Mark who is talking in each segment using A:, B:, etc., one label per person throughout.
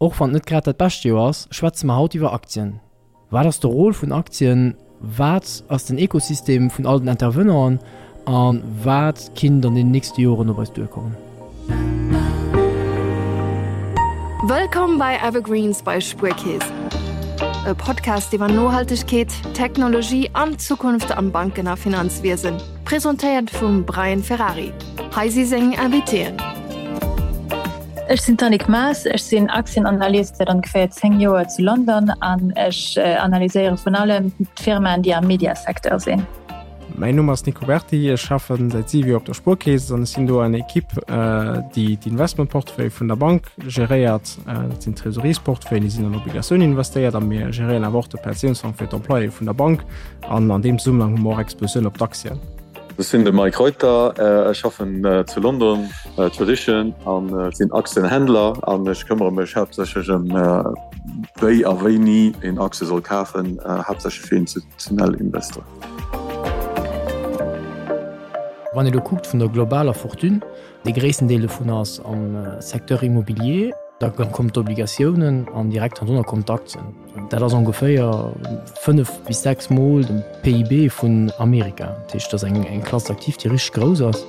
A: Och wann et net grad dat bescht Joer ass, schwätze mer haut iwwer Aktien. Wat ass de Rôle vun Aktien, wat ass den Ekosystem vun all den Intervenanten a wat kinnt an den nächste Joren op eis duerkommen?
B: Wëllkomm bei Evergreens bei Spuerkeess, e Podcast iwwer Nohaltegkeet, Technologie an d'Zukunft am Banken a Finanzwiesen. Presentéiert vum Brian Ferrari. Hei si seng Invitéen.
C: Ech sinn d'Annick Maas, ech sinn Aktienanalyst säit ongeféier 10 Joer zu London an ech analyséiere vun allem d'Firmaen, déi am Mediasecteur sinn.
D: Mäin Numm ass Nico Berti, ech schaffe säit 7 Joer op der Spuerkeess an ech sinn do an der Equipe, déi d'Investmentportefeuille vun der Bank geréiert. Dat sinn Trésoriersportefeuillen, déi sinn an Obligatiounen investéiert a mir geréieren awer och de Pensiounsfong fir d'Employéë vun der Bank an an deem Zesummenhang hu mer och Expositioun op d'Aktien.
E: Ech sinn de Mike Reuter, ech schaffen zu London, Tradition, an sinn Aktienhändler an ech këmmere mech haaptsächlech ëm wéi a wéini een Aktie soll kafen, haaptsächlech fir institutionell Investoren.
A: Wann ee lo kuckt vun der globaler Fortune, dee gréissten Deel dovun ass am Secteur immobilier, da kommen d'Obligatiounen an direkt hannendrunner kommen d'Aktien. Dat ass ongeféier 5 bis 6 Mol de PIB vun Amerika. Dat heescht, dat ass eng Classe d'actifs, déi richteg grouss ass.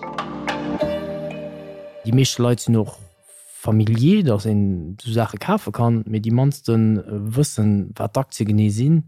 A: Déi meeschte Leit sinn och familier, datt een esou Saache kafe kann, mee déi mannste wëssen, wat d'Aktie genee sinn.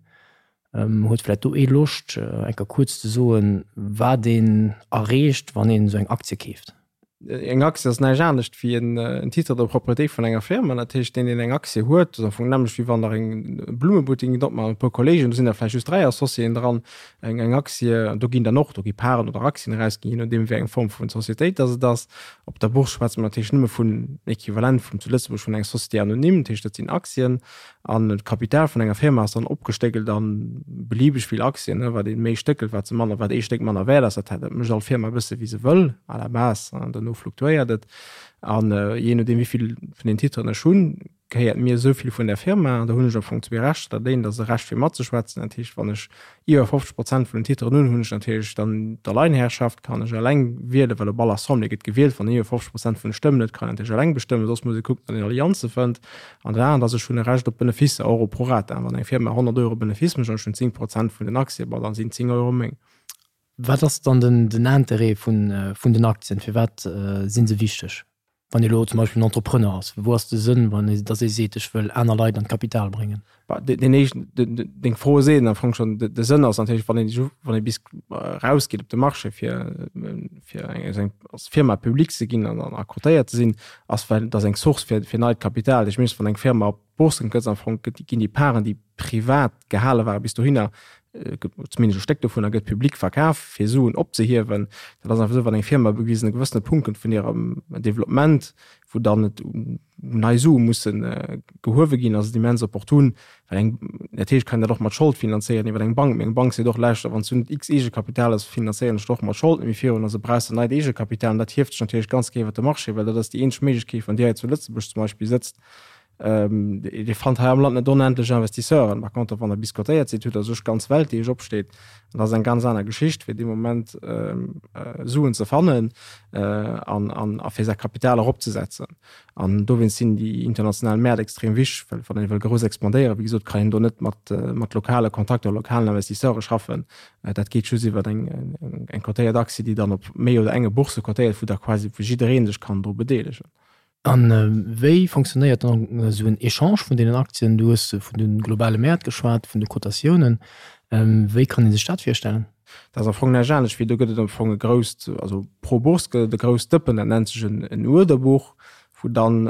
A: Huet vläicht do ee Loscht, eng Kéier kuerz ze soen, wat een erreecht, wann een esou eng Aktie keeft?
D: Eng Aktie ass näischt anescht wéi en Titre de propriété vun enger Firma. Dat heescht, deen, deen eng Aktie huet, ass am Fong d'nämmlecht, wéi wann Der eng Blummebuttek gitt opmaachen mat e puer Kolleegen, do sinn der vläicht just 3 Associéen dran. Eng eng Aktie, do ginn dann och, do gi Paren oder Aktien erausginn, je nodeem wéi eng Form vun Societéit dass et ass. Op der Bourse schwätze mer natierlech nëmme vun Equivalent vum zu Lëtzebuerg vun enger Société anonyme, dat heescht, dat sinn Aktien. An d'Kapital vun enger Firma ass dann opgestéckelt an beliebeg vill Aktien, wat ee méi stéckelt, wat se manner, wat ee Stéck manner wäert ass. Dat dat mécht all Firma e bësse wéi se wëll à la base, an duerno fluktuéiert et. An jee nodeem wéi vill vun den Titren ech hunn, gehéiert mir esou vill vun där Firma. An da hunn ech am Fong zwee Rechter. Dat eent ass e Recht fir matzeschwätzen, dat heescht wann ech Iwwer 50 Prozent vun den Titeren hunn, hunn ech natierlech dann d'Alleinherrschaft, kann ech eleng wielen, well op all Assemblée gëtt gewielt. Wann een iwwer 50 Prozent vun de Stëmmen huet, kann een natierlech eleng bestëmmen, soss muss ee kucken, datt een Allianze fënnt. An dat anert ass, ech hunn e Recht op Beneficer, och op prorata. Wann eng Firma 100 Euro Benefice mécht an ech hunn 10 Prozent vun den Aktie, bon, dann sinn 10 Euro meng.
A: Wat ass dann den Interêt vun den Aktien? Firwat si se wichteg? Wann ee elo zum Beispill en Entrepreneur ass, wou ass de Sënn, wann ee, datt ee seet, ech wëll aner Leit an d'Kapital bréngen?
D: Bah, deen éischten, deng Fro seet am Fong schonn, de Sënn ass natierlech, wann een, wann ee bis erausgeet op de Marché fir, fir eng, als Firma public ze ginn an a cotéiert ze sinn, ass well dat ass eng Source fir, fir neit Kapital. Ech mengen, wann eng Firma op d'Bourse gëtt, am Fong ginn déi Paren, déi privat gehale ware bis dohinner, zumindest e Stéck dovunner gëtt public verkaf, fir Suen opzehiewen. Dat ass einfach esou, wann eng Firma op e gewëssene Punkt kënnt vun hirem Developpement, wou dann et nei Sue musse gehuewe ginn, ass et immens opportun, well eng, natierlech kann een dat och mat Schold finanzéieren iwwer eng Bank, mee eng Bank seet och, lauschter, wann s du net x Eegekapital hues, finanzéieren ech der och mat Schold net méi virun, also brauchs de neit Eegekapital. An dat hieft sech natierlech ganz géint iwwer de Marché, well dat ass déi eenzeg Méiglechkeet, wann Dir hei zu Lëtzebuerg zum Beispill sëtzt, Dir fannt hei am Land net onendlech Investisseuren. Par contre, wann Der bis cotéiert sidd, hutt Der sech d'ganz Welt, déi Iech opsteet. An dat ass eng ganz aner Geschicht, fir dee Moment Suen ze fannen an a fir säi Kapital eropzesetzen. An dowéinst sinn déi international Mäert extrem wichteg, well wann ee wëll grouss expandéieren, wéi gesot, kann een do net mat mat lokale Kontakter, lokalen Investisseure schaffen. Dat geet just iwwer eng eng cotéiert Aktie, déi dann op méi oder enge Bourse cotéiert, wou da quasi wou jidderee sech kann dru bedeelegen.
A: A wéi fonctionnéiert dann esou en Echange vun deenen Aktien? Du hues vun de globale Mäert geschwat, vun de Kotatiounen. Wéi kann ee sech dat virstellen?
D: Dat ass am Fong näischt anescht wéi, do gëtt et am Fong e grousst, also pro Bourse gëtt et e grousst Dëppen, dat nennt sech en Uerderbuch, wou dann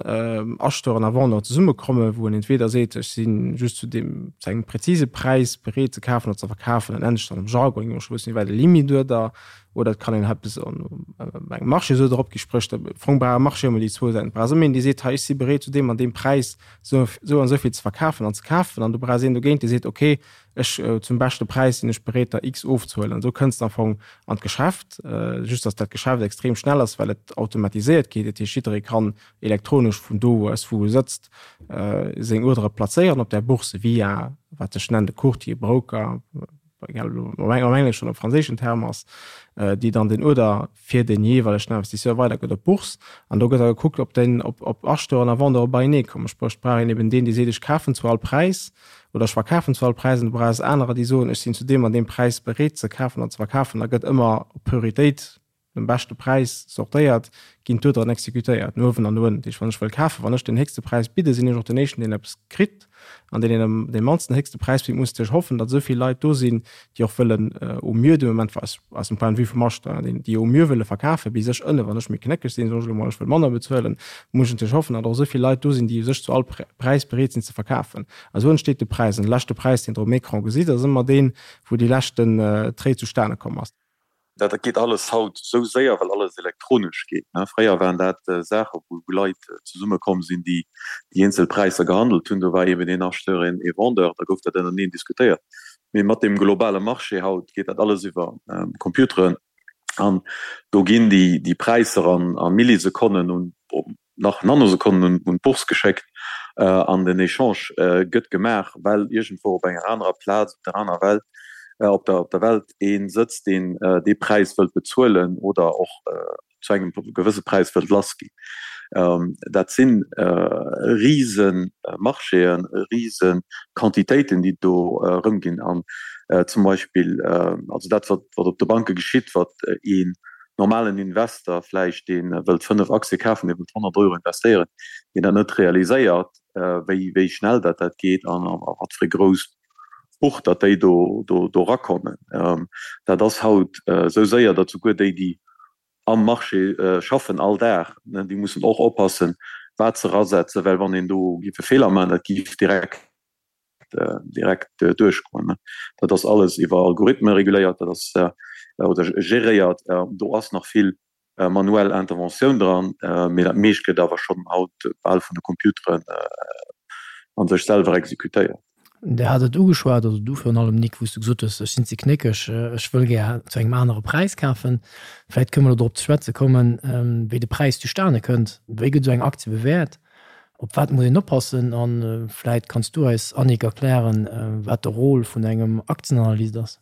D: Acheteuren a Vendeuren zesummekommen, wou en entweder seet, ech si just zu deem, zu engem präzise Präis bereet ze kafen oder ze verkafen, dat nennt sech dann am Jargon, ech wëss net wéi, de Limituerder, Oder et kann een eppes an engem Marché esou drop gi, spréch de Fong brauch e Marché ëmmer déi zwou Säiten. Et brauchs ëmmer een, dee seet, hei ech si bereet zu deem an deem Präis esou esou an esou vill ze verkafen an ze kafen. An du brauchs een dogéint, dee seet, okay, ech zum beschte Präis sinn ech bereet der X ofzehuelen. An esou kënns de am Fong an d'Geschäft, just datt dat Geschäft extrem schnell ass, well et automatiséiert geet. Dat heescht, jidderee kann elektronesch vun do aus, wou e sëtzt, seng Uerdere plazéieren op där Bourse via wat sech nennt e Courtier, Broker. egal ob am engleschen oder am franséischen Term ass, déi dann den Uerder fir den jeeweilegen Investisseur weidergëtt op d'Bourse. An do gëtt da gekuckt, ob den, ob, ob Acheteuren a Vendeure beienee kommen. Spréch, et brauch een eben deen, dee seet, ech kafen zu all Präis oder ech verkafen zu all Präis. An du brauchs anerer, déi soen, ech sinn zu deem an deem Präis bereet ze kafen an ze verkafen. Da gëtt ëmmer op Prioritéit dem beschte Präis sortéiert, ginn d'Uerderen exekutéiert, no uewen an no ënnen. Dat heescht, wann ech wëll kafen, wann ech den héchste Präis bidden, sinn ech och den éischten, deen eppes kritt. An deen, deen dee mannsten héchste Präis bitt, muss natierlech hoffen, datt esou vill Leit do sinn, déi och wëllen au mieux de Moment, aus, aus dem Point de vue vum Acheteur, déi, déi au mieux wëlle verkafen, bis ech ënne, wann ech méi knéckeg sinn, soen ech elo mol, ech wëll manner bezuelen, muss ech natierlech hoffen, datt och esou vill Leit do sinn, déi u sech zu all Präis bereet sinn ze verkafen. A sou entsteet de Präis. An de leschte Präis, deen Der um Ecran gesitt, ass ëmmer deen, wou déi leschten Trade zustane komm ass.
E: Dat geet alles haut esou séier, well alles elektronesch geet. Fréier waren dat Saache wou Leit zesumme komm sinn, déi déi eenzel Präisser gehandelt hunn. Do war eben een Acheteur, een Vendeur, da gouf dat ënnerteneen diskutéiert. Mee mat deem globale Marché haut geet dat alles iwwer Computeren an do ginn déi Präisser a Millisekonnen un nach Nanosekonnen un d'Bourse geschéckt an den Echange gëtt gemaach, well iergendwou op enger anerer Plaz op der aner Welt, op der op der Welt ee sëtzt, deen dee Präis wëllt bezuelen oder och zu engem gewësse Präis wëllt lass ginn. Dat si rise Marchéen, rise Quantitéiten, déi do erëmginn. An zum Beispill, also dat wat op de Banke geschitt, wat ee normalen Investor vläicht, dee wëllt 5 Aktie kafen, dee wëllt 100 Euro investéieren, deen dat net realiséiert, wéi, wéi schnell dat dat geet an a wat fir e grousst Buch datt déi do, do, do erakommen. Dat ass haut esou séier, datt souguer déi, déi am Marché schaffen all Dag, déi mussen och oppassen, wat se erasetzen, well wann een do géif e Feeler maachen, dat géif direkt direkt duerchgoen. Dat ass alles iwwer Algorithme reguléiert, dat ass oder geréiert. Do ass nach vill manuell Interventioun dran, mee dat meescht gëtt awer schonn haut bal vun de Computeren a sech selwer exekutéiert.
A: Der hat et ugeschwat, also du virun allem Nic, wou s du gesot hues, ech sinn ze knéckeg, ech wëll gär zu engem anere Präis kafen. Vläicht kënne mer elo drop ze schwätze kommen, wéi de Präis zustane kënnt. Wéi gëtt esou eng Aktie bewäert? Op wat muss een oppassen? A vläit kanns du eis, Annick, erklären, wat de Rôle vun engem Aktienanalyst ass?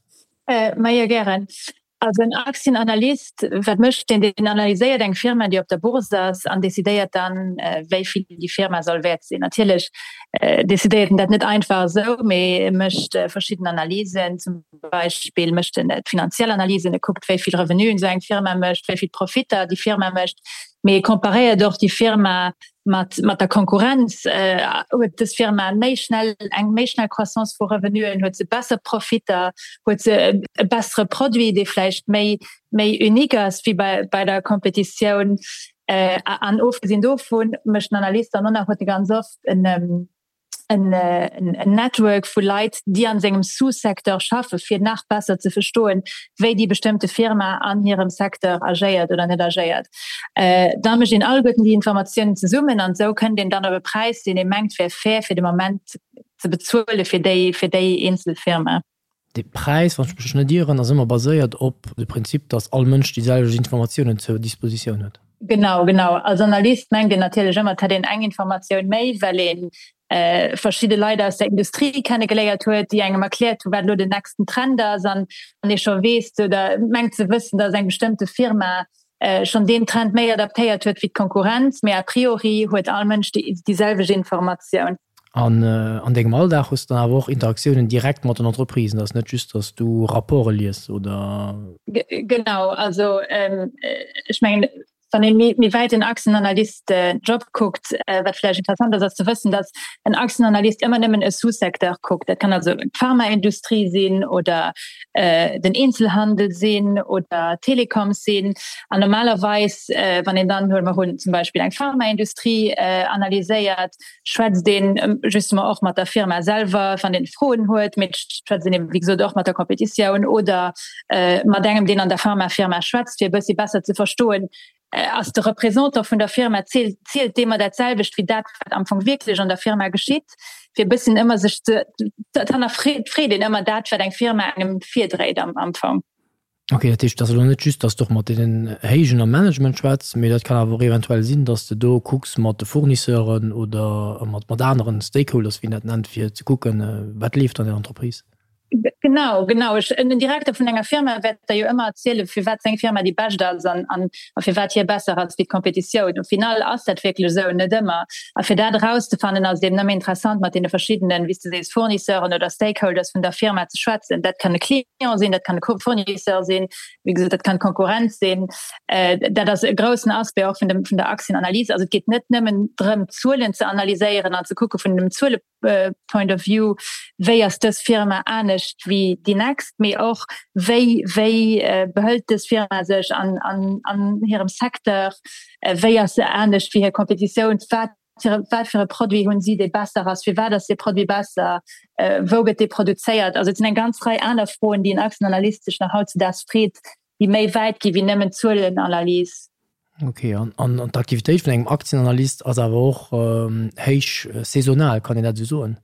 C: Majo, gären. Also en Aktienanalyst, wat mécht deen? Deen analyséiert eng Firma, déi op der Bourse ass an decidéiert dann, wéi vill déi Firma soll wäert sinn. Natierlech decidéiert en dat net einfach esou, mee e mécht verschidden Analysen. Zum Beispill mécht en d'finanziell Analysen, e kuckt, wéi vill Revenuen esou eng Firma mécht, wéi vill Profitter déi Firma mécht. Mee e comparéiert och déi Firma mat, mat der Konkurrenz. Huet dës Firma méi schnell, eng méi schnell Croissance vu Revenuen, huet se besser Profitter, huet se e bessere Produit, dee vläicht méi, méi unique ass wéi bei, bei der Kompetitioun. An ofgesinn dovun mécht den Analyst dann och nach, huet e ganz oft en, en Network vu Leit, déi an sengem Sous-Secteur schaffen, fir nach besser ze verstoen, wéi déi bestëmmte Firma an hirem Secteur agéiert oder net agéiert. Da mécht een alleguerten déi Informatiounen zesummen an esou kënnt een dann op e Präis, deen ee mengt wär fair fir de Moment ze bezuele fir déi, fir déi eenzel Firma.
A: De Präis, wann ech mech net ieren, ass ëmmer baséiert op de Prinzip, datt all Mënsch déi selwecht Informatiounen zur Dispositioun huet.
C: Genau, genau. Als Analyst mengt een natierlech ëmmer, et hätt een eng Informatioun méi, well ee verschidde Leit aus der Industrie kennegeléiert huet, déi engem erkläert hu wat elo den nächsten Trend ass an ee scho weess oder mengt ze wëssen, datt eng bestëmmte Firma schonn deen Trend méi adaptéiert huet wéi d'Konkurrenz. Mee a priori huet all Mënsch déi selwecht Informatioun.
A: An an dengem Alldag hues de dann awer och Interaktiounen direkt mat den Entreprisen, dat ass net just, datt s du Rapporte lies, oder?
C: Genau, also ech mengen, wann ee méi wäit den Aktienanalyst-Job kuckt, wat vläicht interessant ass, ass ze wëssen, datt en Aktienanalyst ëmmer nëmmen e Sous-Secteur kuckt. Dat kann also d'Pharmaindustrie sinn oder den Eenzelhandel sinn oder Telecoms sinn. An normalerweis, wann een dann, huele mer un, zum Beispill eng Pharmaindustrie analyséiert, schwätzt een justement och mat der Firma selwer, wann een Froen huet, mee et schwätzt een eben, wéi gesot, och mat der Competitioun oder mat engem, deen an der Pharmafirma schwätzt, fir e bëssi besser ze verstoen, ass de Représentant vun der Firma, zielt, zielt dee mer dat selwecht wéi dat, wat am Fong wierklech an der Firma geschitt, fir e bësschen ëmmer sech ze, dat hannerfreet een ëmmer dat, wat eng Firma engem virdréit am Fong.
A: Ok, dat heescht, et ass elo net just, datt s de och mat deenen Héijen am Management schwätz, mee dat kann awer och eventuell sinn, datt s de do kucks mat de Fournisseuren oder mat mat aneren Stakeholders, wéi een dat nennt, fir ze kucken, wat leeft an der Entreprise.
C: Genau, genau. Ech, en Direkter vun enger Firma wäert der jo ëmmer erzielen, firwat seng Firma déi bescht ass an, an, a firwat hie besser ass wéi d'Kompetitioun. Au final ass dat wierklech esou? Net ëmmer. A fir dat erauszefannen, ass et eben ëmmer interessant, mat deene verschiddenen, wéi s de sees, Fournisseuren oder Stakeholders vun der Firma ze schwätzen. Dat kann e Client sinn, dat kann e Fournisseur sinn, wéi gesot, dat kann d'Konkurrenz sinn. Dat ass e groussen Aspect och vun dem, vun der Aktienanalyse. Also et geet net nëmmen drëm, d'Zuelen ze analyséieren an ze kucke vun dem Zuele, Point of view, wéi ass dës Firma anescht wéi déi nächst, mee och wéi wéi behëlt dës Firma sech an an an hirem Secteur, wéi ass se anescht wéi hir Kompetitioun, wat fir wat fir e Produit hunn si, dee besser ass, firwat ass dee Produit besser, wou gëtt dee produzéiert. Also et sinn eng ganz Rei aner Froen, déi en Aktienanalyst sech nach hautzedaags freet, déi méi wäit gi wéi nëmmen d'Zuelenanalys.
A: Ok, an d'Aktivitéit vun engem Aktienanalyst ass awer och héich saisonal, kann een dat esou soen?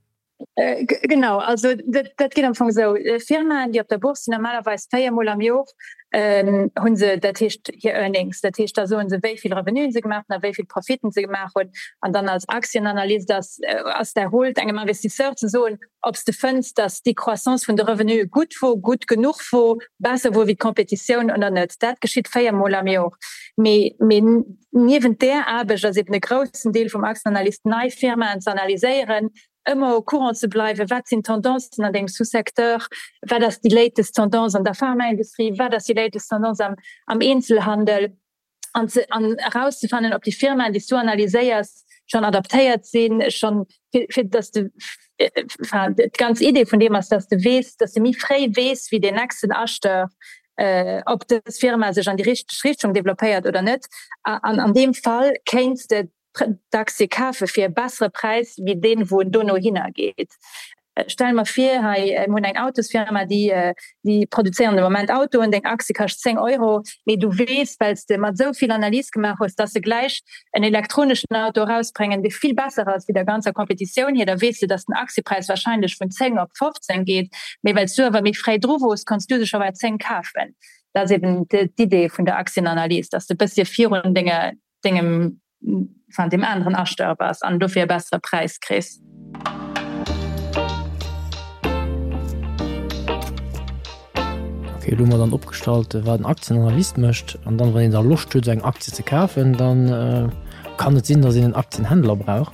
C: Genau, also dat geet am Fong esou, Firmaen, déi op der Bourse sinn, normalerweis 4 Mol am Jor hu se, dat heescht hir Earnings, dat heescht da soe se, wéi vill Revenuen se gemaach hunn a wéi vill Profiten se gemaach hunn. An dann als Aktienanalyst ass ass däi Rôle, engem Investisseur ze soen, ob s de fënns, datt déi Croissance vun de Revenue gutt wor, gutt genuch wor, besser wor wéi d'Competitioun oder net. Dat geschitt 4 Mol am Jor. Mee, mee niewent där Aarbecht ass eben e groussen Deel vum Aktienanalyst, nei Firmaen ze analyséieren, ëmmer au courant ze bleiwen, wat sinn d'Tendancen an dengem Sous-secteur, wat ass déi latest Tendance an der Pharmaindustrie, wat ass déi latest Tendance am, am Eenzelhandel. an ze an erauszefannen, ob déi Firmaen, déi s du analyséiers, schonn adaptéiert sinn, schonn fir, fir dass de enfin d'ganz Idee vun deem ass, dass de weess, dass de méi fréi weess wéi deen nächsten Acheteur, ob dës Firma sech an déi richteg Richtung developpéiert oder net. An an deem Fall kéints de d'Aktie kafe fir e bessere Präis wéi deen, wou en dono hinner geet. Stelle mer vir, hei mir hunn eng Autosfirma, déi déi produzéieren de Moment Autoen, deng Aktie kascht 10 Euro, mee du weess, well s de mat esou vill Analyse gemaach hues, dass se gläich en elektroneschen Auto erausbréngen, dee vill besser ass wéi der ganzer Kompetitioun hir, da weess de, dass den Aktiepräis wahrscheinlech vun 10 op 15 geet, mee well s du awer méi fréi dru wors, konns du se scho bei 10 kafen. Dat ass eben d'Idee vun der Aktienanalyse, dass de e bëssche virun denge dengem enfin deem aneren Acheteur bass an dofir e bessere Präis kriss.
A: Ok, elo hu mer dann opgestallt, wat en Aktienanalyst mécht. An dann, wann een da Loscht huet, esou eng Aktie ze kafen, dann kann et sinn, datt een en Aktienhändler brauch.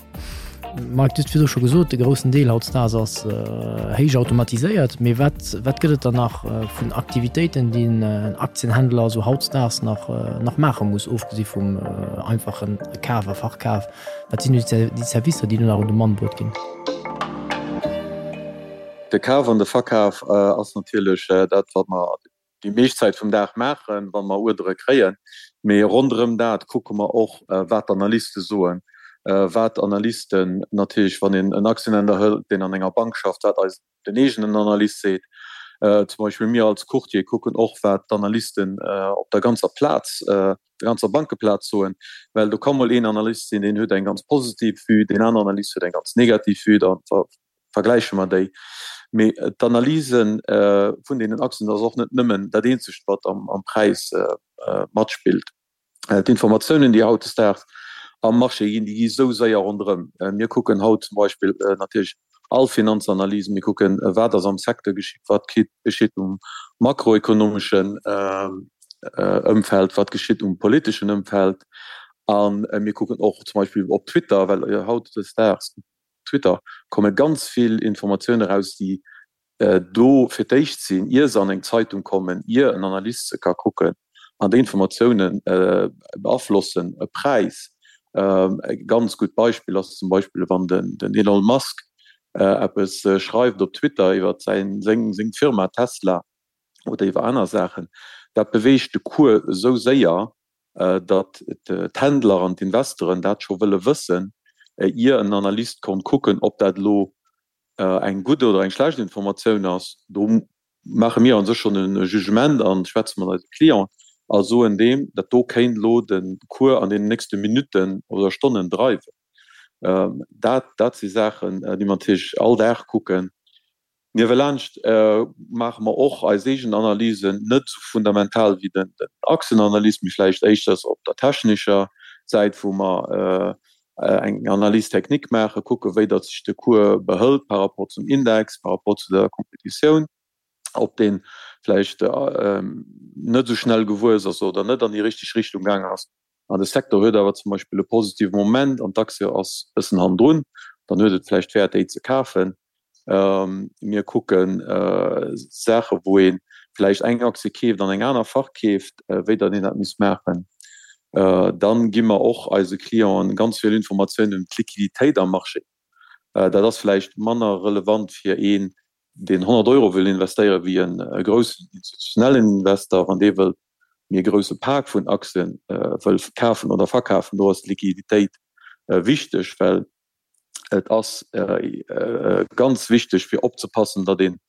A: Mike, du hues virdru scho gesot, de groussen Deel hautdesdaags ass héich automatiséiert. Mee wat, wat gëtt et dann nach vun Aktivitéiten, déi en Aktienhändler esou hautdesdaags nach, nach maache muss, ofgesi vum einfachen Kaf a Verkaf? Wat sinn déi Servicer, déi do nach un de Mann bruet ginn?
E: De Kaf an de Verkaf ass natierlech dat, wat mer déi meescht Zäit vum Dag maachen, wa mer Uerdere kréien. Mee ronderëm dat kucke mer och, wat d'Analyste soen, wat d'Analysten natierlech, wann een en Aktienhändler hëlt, deen an enger Bank schafft, wat eis den eegenen Analyst seet. Zum Beispill mir als Courtier kucken och, wat d'Analysten op der ganzer Plaz, der ganzer Bankeplaz soen, well do ka mol een Analyst sinn, deen huet eng ganz positiv Vue, deen aneren Analyst huet eng ganz negativ Vue. Da vergläiche mer déi. Mee d'Analyse vun deenen Aktien ass och net nëmmen dat eenzegt, wat am Präis matspillt. D'informatiounen, déi hautdesdaags am Marché ginn, déi gi sou séier ronderëm. Mir kucken haut zum Beispill natierlech all Finanzanalysen, mir kucken, wat ass am Secteur geschitt, wat geschitt um makroekonomeschen Ëmfeld, wat geschitt um politeschen Ëmfeld. A mir kucken och zum Beispill op Twitter, well hautdesdaags Twitter komme ganz vill Informatioune raus, déi do fir d'éischt sinn, ier se an eng Zeitung kommen, ier en Analyst se ka kucken. An déi Informatioune beaflossen e Präis. E ganz gutt Beispill ass zum Beispill, wann den Elon Musk eppes schreift op Twitter iwwer seng Firma Tesla oder iwwer aner Saachen, dat beweegt de Cours esou séier, datt d'Händler an d'Investoren dat scho wëlle wëssen, ier en Analyst konnt kucken, ob dat elo eng gutt oder eng schlecht Informatioun ass. Do maache mir a sech schonn e Jugement a schwätze mat eise Clienten a soen deem, dat do kéint elo de Cours an deenen nächste Minutten oder Stonnen dreiwen. Dat, dat si Saachen, déi mer natierlech all Dag kucken. Niewelaanscht maache mer och eis eegen Analysen, net esou fundamental wéi den Achsenanalyst, mee vläicht éischters op der technescher Säit, wou mer eng Analyse technique maachen, kucken, wéi datt sech de Cours behëlt par rapport zum Index, par rapport zu der Kompetitioun. Ob dee vläicht net esou schnell gewuess ass oder net an déi richteg Richtung gaang ass. An de Secteur huet awer zum Beispill e positive Moment an d'Aktie ass e bëssen hannendrun, dann huet et vläicht Wäert, déi ze kafen. Mir kucke Saache wou ee vläicht eng Aktie keeft an eng aner verkeeft, wéi datt een dat misst maachen. Dann gi mer och eise Clienten ganz vill Informatiounen ëm d'Liquiditéit am Marché. Dat ass vläicht manner relevant fir een, deen 100 Euro wëll investéieren, wéi e groussen institutionellen Investor, wann dee wëllt méi e grousse Pak vun Aktien wëll kafen oder verkafen. Do ass d'Liquiditéit wichteg, well et ass ganz wichteg fir opzepassen, datt een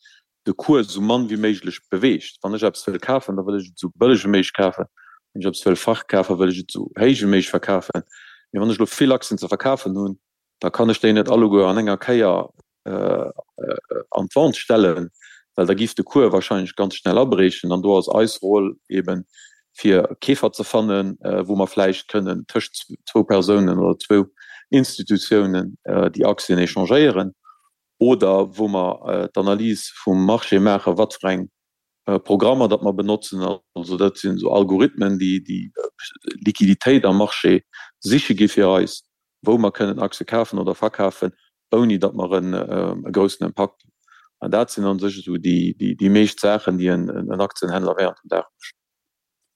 E: de Cours esou mann wéi méiglech beweegt. Wann ech eppes wëll kafen, da wëll ech et esou bëlleg wéi méiglech kafen. Wann ech eppes wëll verkafen, wëll ech et esou héich wéi méiglech verkafen. Mee wann ech elo vill Aktien ze verkafen hunn, da kann ech déi net alleguer an enger Kéier an d'Vente stellen, well da giff de Cours wahrscheinlech ganz schnell abriechen. An do ass eis Roll eben, fir Keefer ze fannen, wou mer vläicht kënnen tëscht zwou Persounen oder zwou Institutiounen déi Aktien échangéieren oder wou mer d'Analys vum Marché maachen, wat fir eng Programmer datt mer benotzen. Also dat sinn esou Algorithmen, déi déi Liquiditéit am Marché siche gi fir eis, wou mer kënnen Aktie kafen oder verkafen, ouni datt mer e groussen Impakt hunn. An dat sinn a sech esou déi meescht Saachen, déi en Aktienhändler während dem Dag mécht.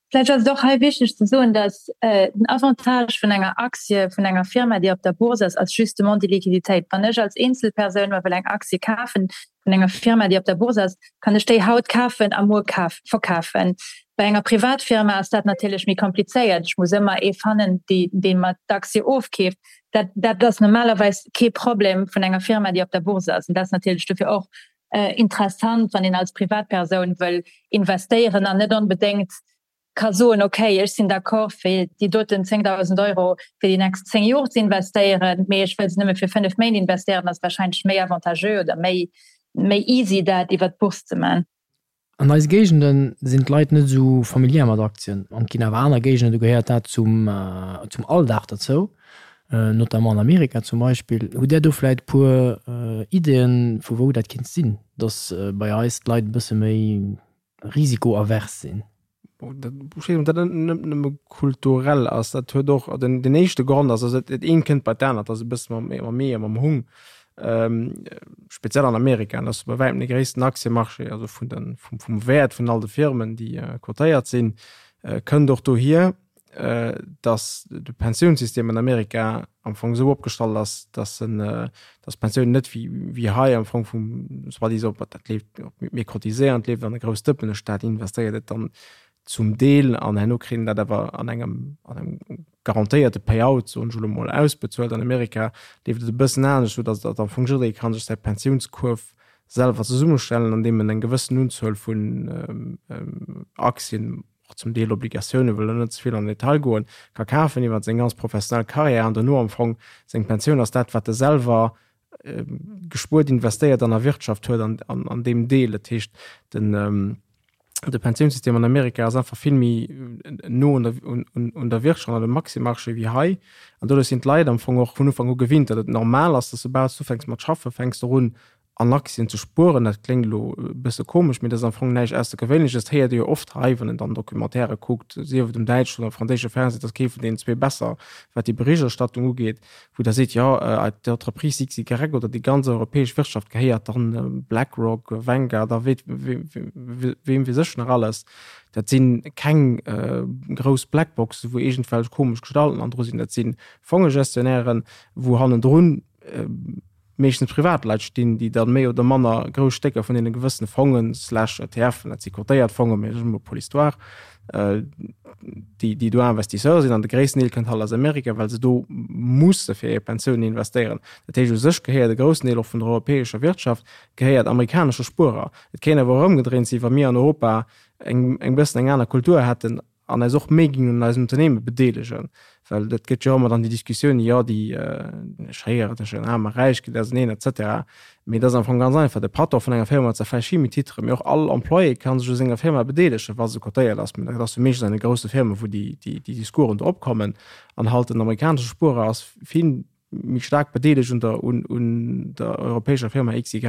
C: Vläicht ass et och hei wichteg ze soen, datt den Avantage vun enger Aktie vun enger Firma, déi op der Bourse ass, ass justement déi Liquiditéit. Wann ech als Eenzelpersoun mer wëll eng Aktie kafen vun enger Firma, déi op der Bourse ass, kann ech déi haut kafen a muer verkafen. Bei enger Privatfirma ass dat natierlech méi komplizéiert. Ech muss ëmmer ee fannen, dee mer d'Aktie ofkeeft. Dat, dat ass normalerweis kee Problem vun enger Firma, déi op der Bourse ass. An dat ass natierlech dofir och interessant, wann een als Privatpersoun wëll investéieren an net onbedéngt ka soen, okay, ech sinn d'accord fir déi doten 10.000 Euro fir déi nächst 10 Joer ze investéieren, mee ech wëll se nëmme fir 5 Méint investéieren, ass wahrscheinlech méi avantageux oder méi, méi easy dat iwwer d'Bourse ze man.
A: An eise Géigende sinn d'Leit net esou familiär mat Aktien. An et ginn awer aner Géigenden, do gehéiert dat zum, zum Alldag derzou, notamment an Amerika zum Beispill. Hutt Där do vläicht e puer Ideeën, vu wou dat kinnt sinn, datt bei eis d'Leit e bësse méi risikoavers sinn?
D: Ech weess net, ob dat net nëmme kulturell ass. Dat huet och, den, den éischte Grond ass, also dat eent kënnt bei d'anert, ass e bësse mam, mam Ee a mam Hung. Speziell an Amerika, dat ass bei wäitem de gréissten Aktiemarché, also vun den, vum, vum Wäert vun all de Firmen, déi cotéiert sinn, kënnt och dohier, datt de Pensiounssystem an Amerika am Fong esou opgestallt ass, datt en, datt d'Pensioun net wéi, wéi hei am Fong vum, soi-disant, dat leeft, mir cotiséieren, et leeft an e grousst Dëppen, de Staat investéiert et dann zum Deel an herno kritt een dat awer an engem, an engem garantéierte Payout, soen ech elo mol, ausbezuelt. An Amerika leeft et e bëssen anescht, esou datt datt am Fong jidderee ka sech säi Pensiounskuerf selwer zesummestellen, andeem en eng gewëssen Unzuel vun Aktien, och zum Deel Obligatioune, wëll elo net ze vill an den Detail goen, ka kafen iwwer seng ganz professionell Karriär an dono am Fong seng Pensioun ass dat, wat e selwer gespuert, investéiert an erwirtschaft huet an, an, an deem Deel. Dat heescht, den, de Pensiounssystem an Amerika ass einfach vill méi no un der, un, un, un der Wirtschaft, an dem Aktiemarché wéi hei. An doduerch sinn d'Leit am Fong och vun Ufank u gewinnt, datt et normal ass, datt soubal s du ufänks mat schaffen, fänks de un An Aktien ze spueren, dat kléngt elo e bësse komesch, mee dat ass am Fong näischt Aussergewéinleches. Dat héiert ee jo oft hei, wann een dann Documentairë kuckt, sief et um däitschen oder franséische Fernseh, et ass kee vun deenen zwee besser, wat déi Berichterstattung ugeet, wou da seet, jo, d'Entreprise XY oder déi ganz europäesch Wirtschaft gehéiert dann BlackRock, Vanguard a weem weess ech nach alles. Dat si keng grouss Blackboxen, wou iergendwelch komesch Gestalten an dru sinn. Dat si Fongegestionären, wou hannendrun meeschtens Privatleit stinn, déi dann méi oder manner grouss Stécker vun deene gewëssene Fongen slash ETFen, dat si cotéiert Fongen, mee dat ass emol pour l'histoire, déi, déi do Investisseur sinn. An de gréissten Deel kënnt halt aus Amerika, well se do musse fir hir Pensiounen investéieren. Dat heescht, u sech gehéiert e groussen Deel och vun der europäescher Wirtschaft gehéiert amerikanesche Spuerer. Et kéint awer och ëmgedréint sinn, wa mir an Europa eng, eng bëssen eng aner Kultur hätten, an eis och méi ginn un eisen Unternehme bedeelegen, well dat gëtt jo ëmmer dann déi Diskussioun, jo déi ech héieren tëscht den Aarm a Räich geet auseneen et cetera. Mee et ass am Fong ganz einfach, de Patron vun enger Firma huet zwar vläicht vill méi Titren, mee och all Employé ka sech u senger Firma bedeelegen, wa se cotéiert ass. Mee dat ass jo meeschtens an de grousse Firmen, wou déi déi Discoursen do opkommen. An halt den amerikanesche Spuerer ass vill. méi staark bedeelegt un der, un, un der europäescher Firma XY,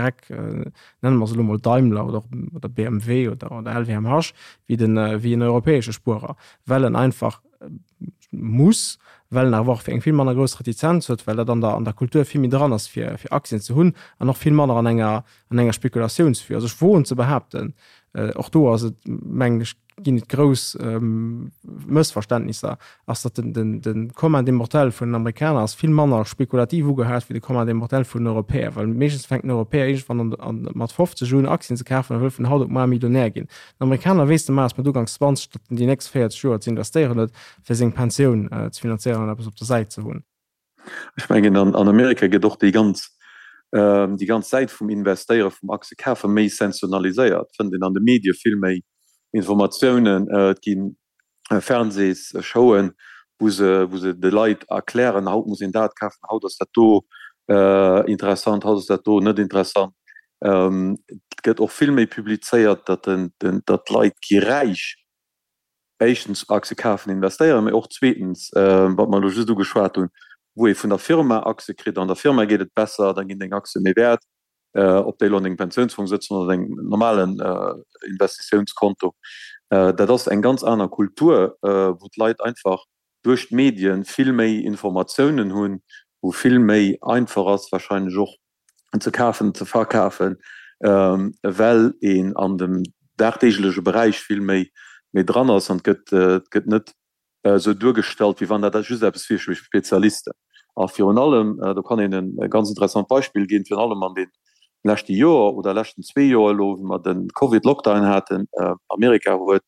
D: nenne mer se elo mol Daimler oder, oder BMW oder, oder LVMH, wéi den, wéi en europäesche Spuerer, well en einfach muss, well en awer och eng vill manner grouss Retizenz huet, well dat an der, an der Kultur vill méi dran ass, fir, fir Aktien ze hunn an och vill manner an enger, an enger Spekulatiounsvue. Also ech woen ze behaapten, och do ass et, mengen ech, ginn et grouss Mëssverständnisser, ass, datt den, den, de Commun des mortels vun den Amerikaner ass vill manner spekulativ ugehaat wéi de Commun des mortels vun den Europäer, well meeschtens fänkt den Europäer iergendwann an, an, mat 50 un Aktien ze kafen a wëll vun haut op muar Millionär ginn. Den Amerikaner weess de Maas mat uganks 20, datt en déi nächst 40 Joer ze investéieren huet, fir seng Pensioun ze finanzéieren an eppes op der Säit ze hunn.
E: Ech mengen, an Amerika gëtt och déi ganz, déi ganz Säit vum Investéiere, vum Aktiekafe méi sensationaliséiert. Et fënnt een an de Medie vill méi Informatiounen. Et gi Fernsehsshowen, wou se, wou se de Leit erklären, haut muss een dat kafen, haut ass dat do interessant, haut ass dat do net interessant. Et gëtt och vill méi publizéiert, datt den, datt d'Leit gi räich éischtens Aktie kafen, investéieren, mee och zweetens, wat mer elo just ugeschwat hunn, wou ee vun der Firma Aktie kritt, an der Firma geet et besser, da ginn deng Aktie méi wäert, ob déi elo an dengem Pensiounsfong sëtzen oder dengem normalen Investitiounskonto. Dat ass eng ganz aner Kultur, wou d'Leit einfach duerch d'Medien vill méi Informatiounen hunn, wou vill méi einfach ass wahrscheinlech och ze kafen, ze verkafen, well een an dem dagdeegleche Beräich vill méi méi dran ass an et gëtt et gëtt net esou duergestallt, wéi wann dat just eppes wier fir Spezialisten. A virun allem, do kann een e ganz interessant Beispill ginn, virun allem an deem leschte Joer oder leschten zwee Joer elo, wou mer de Covid-Lockdown haten, Amerika huet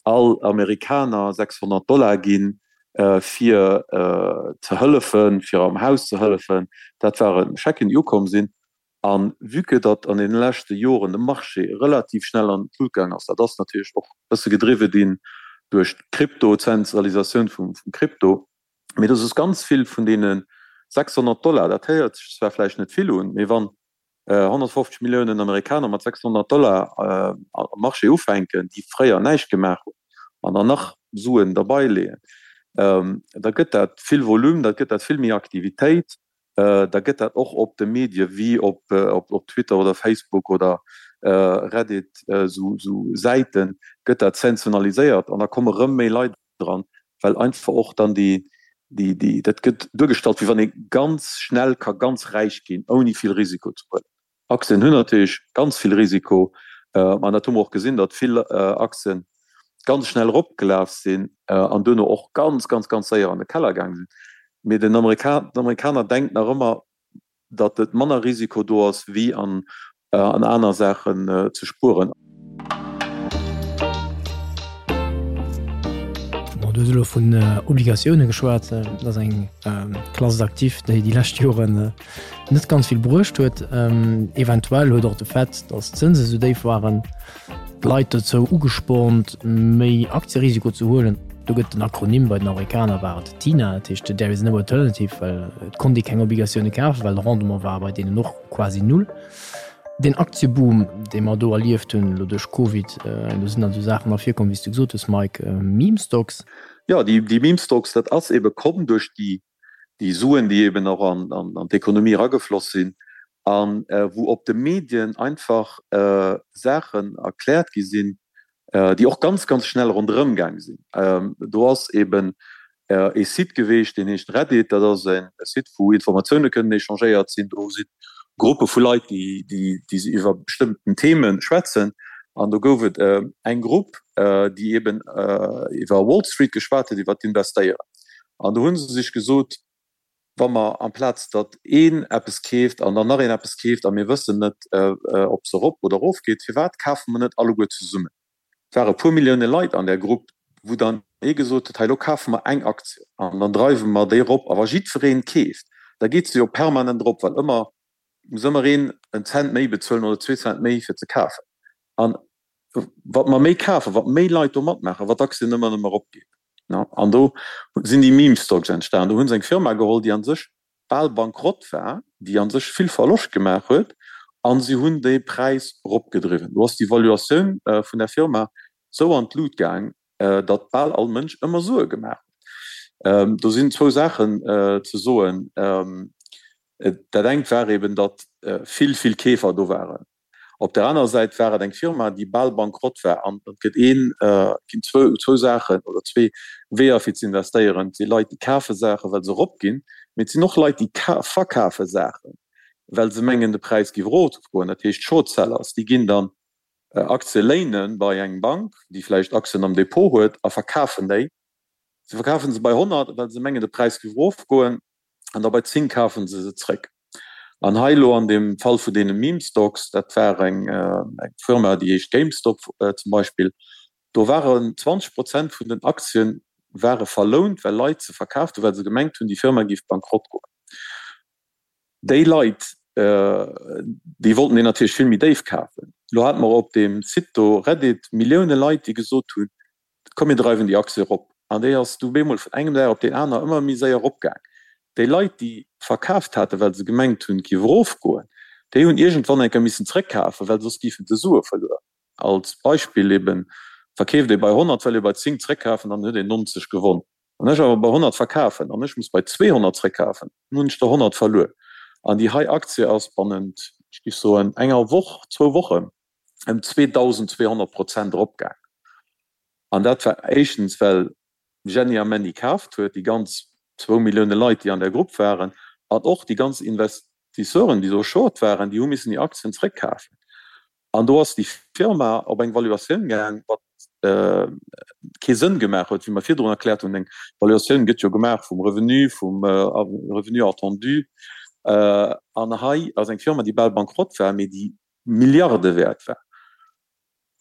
E: all Amerikaner 600 Dollar ginn, fir ze hëllefen, fir am Haus ze hëllefen. Dat ware Schecken, déi ukomm sinn. A vue que datt an deene leschte Joren de Marché relativ schnell an d'Lut gaang ass, dat ass natierlech och e bësse gedriwwe ginn duerch d'Krypto, d'Zentralisatioun vum Krypto, mee dass ass ganz vill vun deene 600 Dollar, dat héiert sech zwar vläicht net vill un, mee wann 150 Milliounen Amerikaner mat 600 Dollar am Marché ufänken, déi fréier näischt gemaach hunn, an dann nach Suen derbei leeën, da gëtt dat vill Volume, da gëtt dat vill méi Aktivitéit, da gëtt dat och op de Medie wéi op Twitter oder Facebook oder Reddit, esou Säiten, gëtt dat sensationaliséiert an da komme rëm méi Leit dran, well einfach och dann déi, déi, déi, dat gëtt duergestallt, wéi wann ee ganz schnell ka ganz räich ginn, ouni vill Risiko ze huelen. Aktien hunn natierlech ganz vill Risiko, an dat hu mer och gesinn, datt vill Aktien ganz schnell eropgelaf sinn an duerno och ganz, ganz, ganz séier an de Keller gaange sinn. Mee den Amerika, den Amerikaner denkt nach ëmmer, datt et manner Risiko do ass wéi an aner Saachen ze spueren.
A: Bon, du hues elo vun Obligatioune geschwat. Dat ass eng Classe d'actifs, déi déi lescht Joren net ganz vill bruecht huet. Eventuell huet och de Fait, datt d'Zënse sou déif waren, d'Leit dozou ugespornt, méi Aktierisiko ze huelen. Do gëtt den Akronym, bei den Amerikaner war et TINA, dat heescht There is no alternative, well et konnt ee keng Obligatioune kafen, well de Rendement war bei deenen och quasi null. Deen Aktieboom, dee mer do erlieft hunn, elo duerch Covid, do sinn dann esou Saachen ervirkomm, wéi s du gesot hues, Mike, Meme Stocks.
E: Jo, déi Meme Stocks, dat ass ebe komm duerch déi déi Suen, déi eben och an d'Ekonomie eragefloss sinn a wou op de Medien einfach Saachen erkläert gi sinn, déi och ganz, ganz schnell ronderëm gaang sinn. Do ass eben ee Site geweecht, deen heescht Reddit. Dat ass e Site, wou Informatioune kënnen échangéiert sinn. Do si Gruppe vu Leit, déi iwwer bestëmmten Theme schwätzen. An do gouf et eng Grupp, déi eben iwwer Wall Street geschwat huet, iwwer d'Investéieren. An do hu se sech gesot, wa mer amplaz datt een eppes keeft an dann nach een eppes keeft a mir wëssen net, ob se erop oder erof geet, firwat kafe mer net alleguer zesummen? Et ware e puer Millioune Leit an där Grupp, wou dann ee gesot huet, hei elo kafe mer eng Aktie an dann dreiwe mer déi erop. A wa jiddweree keeft, da geet se jo permanent erop, well ëmmer muss ëmmer een en Cent méi bezuelen oder zwee Cent méi fir ze kafen. An wat mer méi kafen, wat méi Leit do matmaachen, wat d'Aktien ëmmer nëmme eropgeet. An do sinn déi Meme Stocks entstan. Do hu se eng Firma geholl, déi a sech bal bankrott war, déi a sech vill Verloscht gemaach huet, a si hunn de Präis eropgedriwwen. Do ass déi Valuatioun vun der Firma sou an d'Lut gaang, datt bal all Mënsch ëmmer Sue gemaach huet. Do sinn zwou Saachen ze soen. Dat engt war eben, datt vill, vill Keefer do waren. Op der anerer Säit war et eng Firma, déi bal bankrott war. An et gëtt een, et ginn zwou, zwou Saachen oder zwee Weeër fir ze investéieren. Et si Leit, déi kafe Saachen, well se eropginn, mee et sinn och Leit, déi verkafe Saachen, well se mengen, de Präis géif erofgoen. Dat heescht Short-Sellers, déi ginn dann Aktie léine bei eng Bank, déi vläicht Aktien am Depot huet, a verkafen déi. Se verkafen se bei 100, well se mengen, de Präis géif erofgoen, an da bei 10 kafen se se zréck. An hei elo an deem Fall vun deene Meme Stocks, dat war eng Firma, déi heescht GameStop zum Beispill, do waren 20 Prozent vun den Aktien ware verlount, well Leit se verkaaft hunn, well se gemengt hunn, déi Firma géif bankrott goen. Déi Leit, déi wollten deen natierlech vill méi déif kafen. Elo hate mer op deem Site do, Reddit, Millioune Leit, déi gesot hunn, Komm mir dreiwen déi Aktie erop. An déi ass du bemol vun engem Dag op deen aner ëmmer méi séier eropgaang. Déi Leit, déi verkaaft haten, well se gemengt hunn, et géif erofgoen, déi hunn iergendwann eng Kéier missen zréckkafen, well soss géifen se Sue verluer. Als Beispill eben, verkeeft ee bei 100, well ee bei 10 zréckkafen, dann huet een 90 gewonn. Wann ech awer bei 100 verkafen an ech muss bei 200 zréckkafen, dann hunn ech der 100 verluer. An déi hei Aktie ass bannent, ech géif soen, enger Woch, zwou Wochen ëm 2.200 Prozent eropgaang. An dat war éischtens, well Jenny a Manny kaaft huet, déi ganz zwou Millioune Leit, déi an där Grupp waren, an och déi ganz Investisseuren, déi do short waren, déi hu missen hir Aktien zréckkafen. An do ass déi Firma op eng Valuatioun gaang, wat kee Sënn gemaach huet, wéi mer virdrun erkläert hunn. Eng Valuatioun gëtt jo gemaach vum Revenu, vum Revenu attendu. An hei ass eng Firma, déi bal bankrott war, mee déi Milliarde wäert war.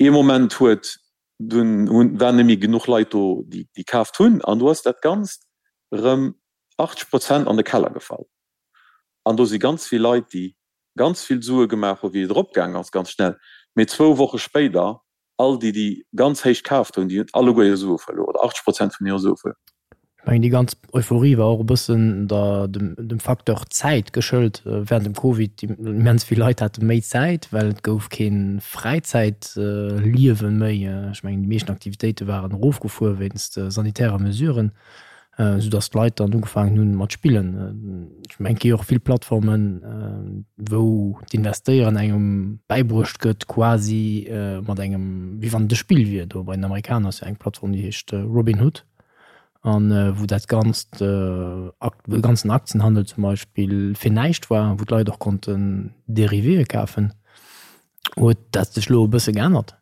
E: Ee Moment huet dunn hunn waren net méi genuch Leit do, déi déi kaaft hunn, an do ass dat Ganzt erëm 80 Prozent an de Keller gefall. An do si ganz vill Leit, déi ganz vill Sue gemaach hu wéi et eropgaang ass, ganz schnell, mee zwou Woche spéider all déi, déi ganz héich kaaft hunn, déi hunn alleguer hir Sue verluer oder 80 Prozent vun hire Sue verluer.
A: Ech mengen, déi ganz Euphorie war och e bëssen der, dem, dem Facteur Zäit geschëlt während dem Covid. Immens vill Leit hate méi Zäit, well et gouf kee Fräizäitliewe méi. Ech mengen, déi meeschten Aktivitéite waren erofgefuer wéinst sanitärer Mesuren. Esou datt d'Leit dann ugefaangen hunn mat spillen. Ech mengen et gi jo och vill Plattformen, wou d'Investéieren engem bäibruecht gëtt quasi mat engem, wéi wann et e Spill wier. Do bei den Amerikaner ass jo eng Plattform déi heescht Robinhood an wou dat ganzt de ganzen Aktienhandel zum Beispill fir näischt war, wou d'Leit och konnten Dérivéë kafen. Huet dat sech elo e bësse geännert?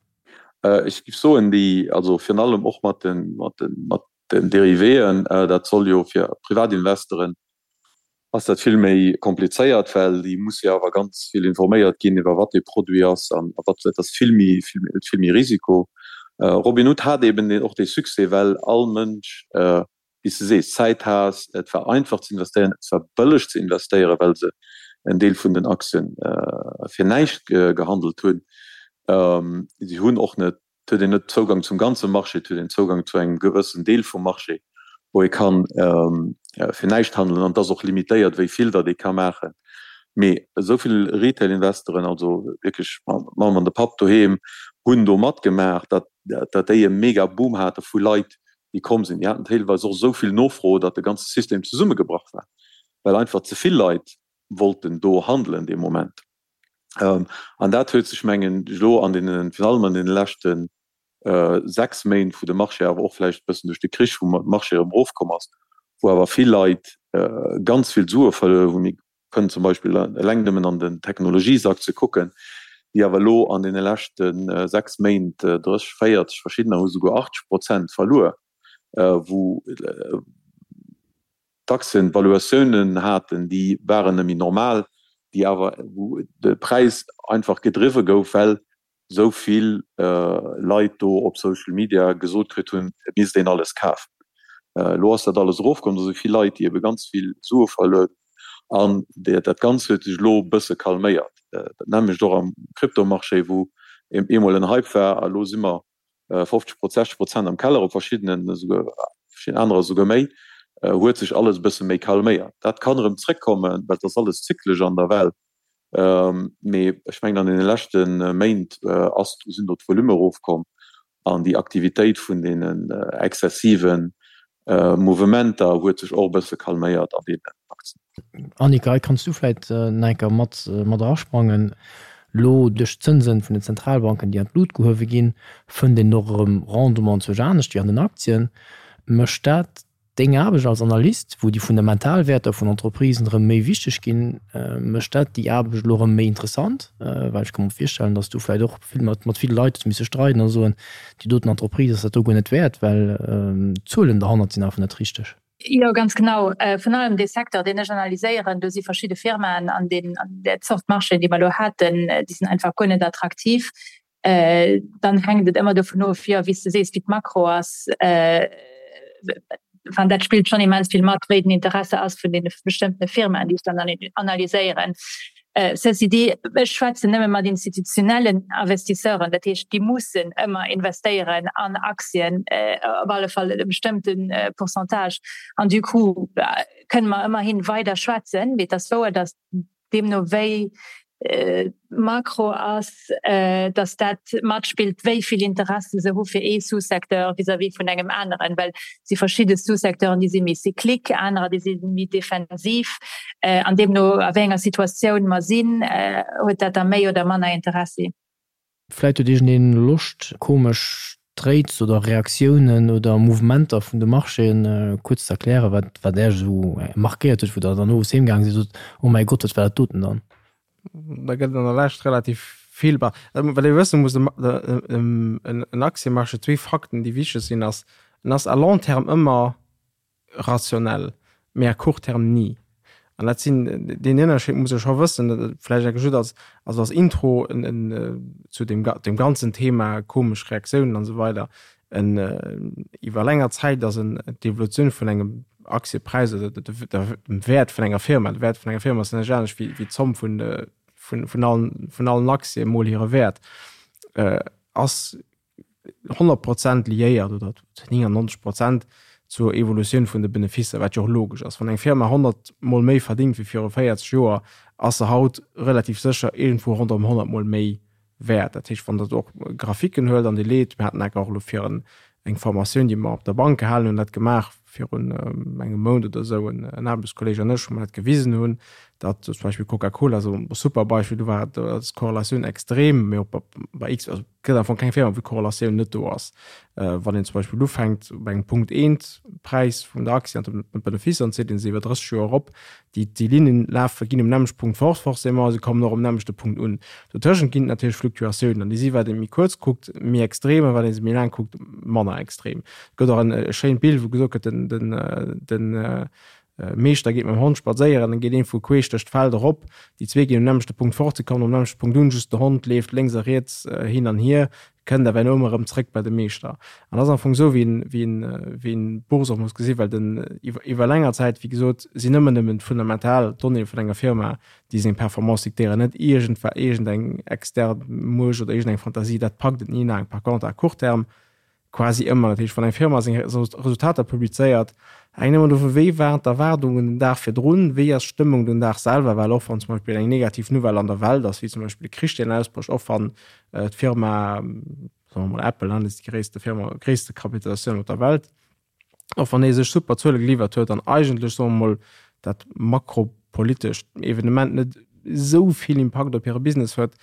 E: Ech géif soen, déi, also virun allem och mat de, mat de, mat Den Dérivéen, dat soll jo fir Privatinvestoren ass dat vill méi komplizéiert, well déi musse jo awer ganz vill informéiert ginn iwwer wat dee Produit ass an wat, dat ass vill méi, huet vill méi Risiko. Robinhood hat eben och dee Succès, well all Mënsch, wéi s de sees, Zäit hat, et war einfach ze investéieren, et war bëlleg ze investéieren, well se en Deel vun den Aktien fir näischt gehandelt hunn. Si hunn och net Et huet een net Zougang zum ganze Marché, et huet een Zougang zu engem gewëssen Deel vum Marché, wou ee kann fir näischt handelen. An et ass och limitéiert, wéi vill datt ee ka maachen. Mee esou vill Retail-Investoren, also wierklech d'Mamm an de Papp doheem, hunn do matgemaach, datt datt déi e mega Boom hate vu Leit, déi komm sinn. Déi haten deelweis och esou vill Nofro, datt de ganze System zesummegebrach war, well einfach ze vill Leit wollten do handelen dee Moment. An dat huet sech, mengen ech, elo an deenen, virun allem an deene leschte 6 Méint, wou de Marché awer och vläicht e bëssen duerch de Krich, wou de Marché erëm erofkomm ass, wou awer vill Leit ganz vill Sue verluer hunn, mir kënnen zum Beispill eleng nëmmen an den Technologiesaktie kucken, déi awer elo an deene leschte 6 Méint 30, 40, verschiddener hu souguer 80 Prozent verluer, wou d'Aktien Valuatiounen haten, déi waren net méi normal, déi awer, wou de Präis einfach gedriwwe gouf, well esou vill Leit do op Social Media gesot kritt hunn, et misst een alles kafen. Elo ass dat alles erofkomm, do si vill Leit, déi ebe ganz vill Sue verluer hunn an dat Ganzt huet sech elo e bësse calméiert. Dat nämmlecht och am Kryptomarché, wou eemol en Hype war a elo si mer 50 Prozent, 60 Prozent am Keller, op verschiddenen esouguer, verschidden anerer esouguer méi, huet sech alles e bësse méi calméiert. Dat kann erëm zréckkommen, well et ass alles zyklesch an der Welt. Mee ech mengen an deene leschte Méint ass, sinn do d'Volume erofkomm an déi Aktivitéit vun deenen exzessiven. Mouvementer huet sech och e bësse calméiert an deenen Aktien.
A: Annika, hei kanns du vläit nach eng Kéier mat mat erasprangen. Lo duerch d'Zënsen vun den Zentralbanken, déi an d'Lut gehuewe ginn, fënnt een och erëm Rendement zwousch anescht wéi an den Aktien. Mécht dat deng Aarbecht als Analyst, wou déi fundamental Wäerter vun Entreprisen erëm méi wichteg ginn, mécht dat déi Aarbecht elo erëm méi interessant? Well ech ka mer virstellen, datt s du vläit och vill mat mat ville Leit hues misse streiden a soen, déi doten Entreprise ass dat do guer net wäert, well d'Zuelen derhannert sinn einfach net richteg.
C: Jo, ganz genau. Virun allem dee Secteur, deen ech analyséieren, do si verschidde Firmaen an deem an där Zort Marchéen, déi mer elo haten, déi sinn einfach guer net attraktiv. Dann hänkt et ëmmer dovun of, jo, wéi s de sees, wéi d'Makro ass. Enfin, dat spillt schonn immens vill mat, wéi den Interesse ass vun deene bestëmmtene Firmaen, déi ech dann analyséieren. Ceci dit, ech schwätzen nëmme mat institutionellen Investisseuren, dat heescht, déi mussen ëmmer investéieren an Aktien, op alle Fall e bestëmmte Pourcentage. An du coup kënne mer ëmmerhin weider schwätzen. Mee et ass wouer, datt deemno wéi d'Makro ass, datt dat matspillt, wéi vill Interesse se hu fir ee Sous-secteur vis-à-vis vun engem aneren, well et si verschidde Sous-secteuren, déi si méi cyclique, anerer, déi si méi defensiv. An deemno a wéi enger Situatioun mer sinn, huet dat da méi oder manner Interessi.
A: Vläit huet iergendeen Loscht, komesch Trades oder Reaktiounen oder Mouvementer vun de Marchéen kuerz ze erklären, wat wat Äech esou markéiert huet, wou Der dann owes heem gaange sidd a sot, Oh mäi Gott, wat war dat doten dann?
D: Da gëtt et an der Lescht relativ vill. Bah, wat ee wësse muss, en Aktiemarché, zwee Fakten, déi wichteg sinn, ass, en ass à long terme ëmmer rationell, mee à court terme ni. An dat sinn, deen Ënnerscheed muss ee scho wëssen, vläicht enke just als, also als Intro zu deem, deem ganzen Thema komesch Reaktiounen an esou weider. En, iwwer länger Zäit ass en, d'Evolutioun vun engem Aktiepräis oder dem Wäert vun enger Firma, de Wäert vun enger Firma ass näischt anescht wéi, wéi d'Zomm vun, vun, vun allen, vun allen Aktie mol hire Wäert, ass 100 Prozent liéiert oder zu 99 Prozent zur Evolutioun vun de Beneficer, wat jo och logesch ass. Wann eng Firma 100 mol méi verdingt wéi viru 40 Joer, ass se haut relativ sécher iergendwou ronderëm 100 mol méi wäert. Dat heescht, wann Der och Graphiken huelt an Dir leet, mir haten enker och elo fir eng Formatioun, déi mer op der Bank gehalen hunn, dat gemaach virun engem Mount oder esou, en Aarbechtskolleeg an ech, wou mer dat gewisen hunn, datt zum Beispill Coca-Cola, esou e super Beispill, do war d'Korrelatioun extrem, mee och bei X, also Et gëtt am Fong keng Firma, wou d'Korrelatioun net do ass. Wann een zum Beispill ufänkt bei engem Punkt eent Präis vun der Aktie an dem Benefice an zitt een se iwwer 30 Joer erop, déi déi Linnen lafe ginn um nämmlechte Punkt fort forcément, se kommen och um nämmlechte Punkt un. Dotëschent ginn et natierlech Fluktuatiounen an déi si wat ee méi kuerz kuckt méi extrem a wat ee se méi laang kuckt manner extrem. Et gëtt och en e schéint Bild wou gesot gëtt den den den Meeschter geet mam Hond spadséieren, dann geet een vu queesch duerch d'Feld erop, déi zwee ginn um nämmlechte Punkt fort, se kommen um nämmlechte Punkt un, just de Hond leeft lénks a riets hin an hier, kënnt awer herno ëmmer erëm zréck bei de Meeschter. An dat ass am Fong esou, wéi een, wéi een, wéi een d'Bourse och muss gesinn, well den, iwwer, iwwer länger Zäit, wéi gesot, sinn ëmmer nëmmen d'fundamental Donnéeë vun enger Firma, déi seng Performance diktéieren, net iergendwa, iergendeng extern Muecht oder iergendeng Fantasie, dat packt et ni laang. Par contre à court terme Quasi ëmmer. Dat heescht, wann eng Firma seng Resultater publizéiert, hänkt ëmmer dovun, wéi waren d'Erwaardungen den Dag virdrun, wéi ass d'Stëmmung den Dag selwer, well och wann zum Beispill eng negativ Nouvelle an der Welt ass, wéi zum Beispill e Krich, deen ausbrécht, och wann d'Firma, soe mer mol Apple, dat ass déi gréisste Firma, gréisste Kapitalisatioun op der Welt, och wann dee sech super Zuele geliwwert huet an eigentlech, soe mer mol, dat makropolitescht Evenement net esou vill Impakt op hire Business huet,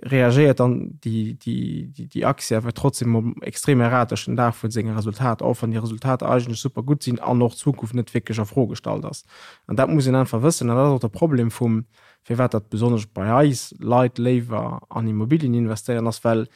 D: reagéiert dann déi, déi, déi Aktie awer trotzdem extrem erratesch den Dag vu senge Resultater, och wann déi Resultater eigentlech super gutt sinn an och d'Zukunft net wierklech a Fro gestallt ass. An dat muss een einfach wëssen an dat ass och de Problem vum, firwat dat besonnesch bei eis Leit léiwer an Immobilien investéieren, ass well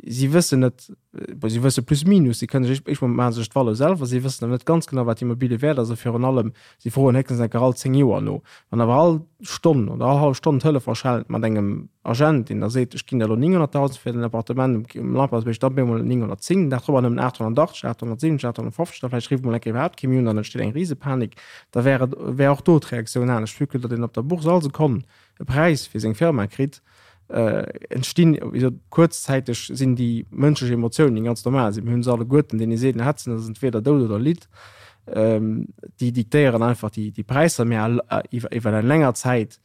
D: si wëssen net, bon, si wësse plus minus, si kënnen sech, ech maache sech d'Valeur selwer, si wëssen awer net ganz genau, wat d'Immobilie wäert ass a virun allem, si froen héchstens eng Kéier all 10 Joer no. Wann awer all Stonn oder all hallef Stonn d'Telefon schellt mat engem Agent, deen da seet, ech ginn der elo 900.000 fir den Appartement um Lampertsbierg, da op eemol 910, den Dag drop awer nëmmen 880, 870, 850, da vläicht rifft emol eng Kéier iwwerhaapt kee méi un an et entsteet eng Risepanik, da wär et, wär och do d'Reaktioun anescht, vue que datt een op der Bourse all Sekonn e Präis fir seng Firma kritt, entstinn, wéi gesot, kuerzzäiteg sinn déi mënschlech Emotiounen, déi ganz normal sinn, mir hunn se alleguerten, deen ee seet, en hätt se, dat ass entweder Doud oder Lidd, déi diktéieren einfach déi Präisser, mä iwwer eng länger Zäit.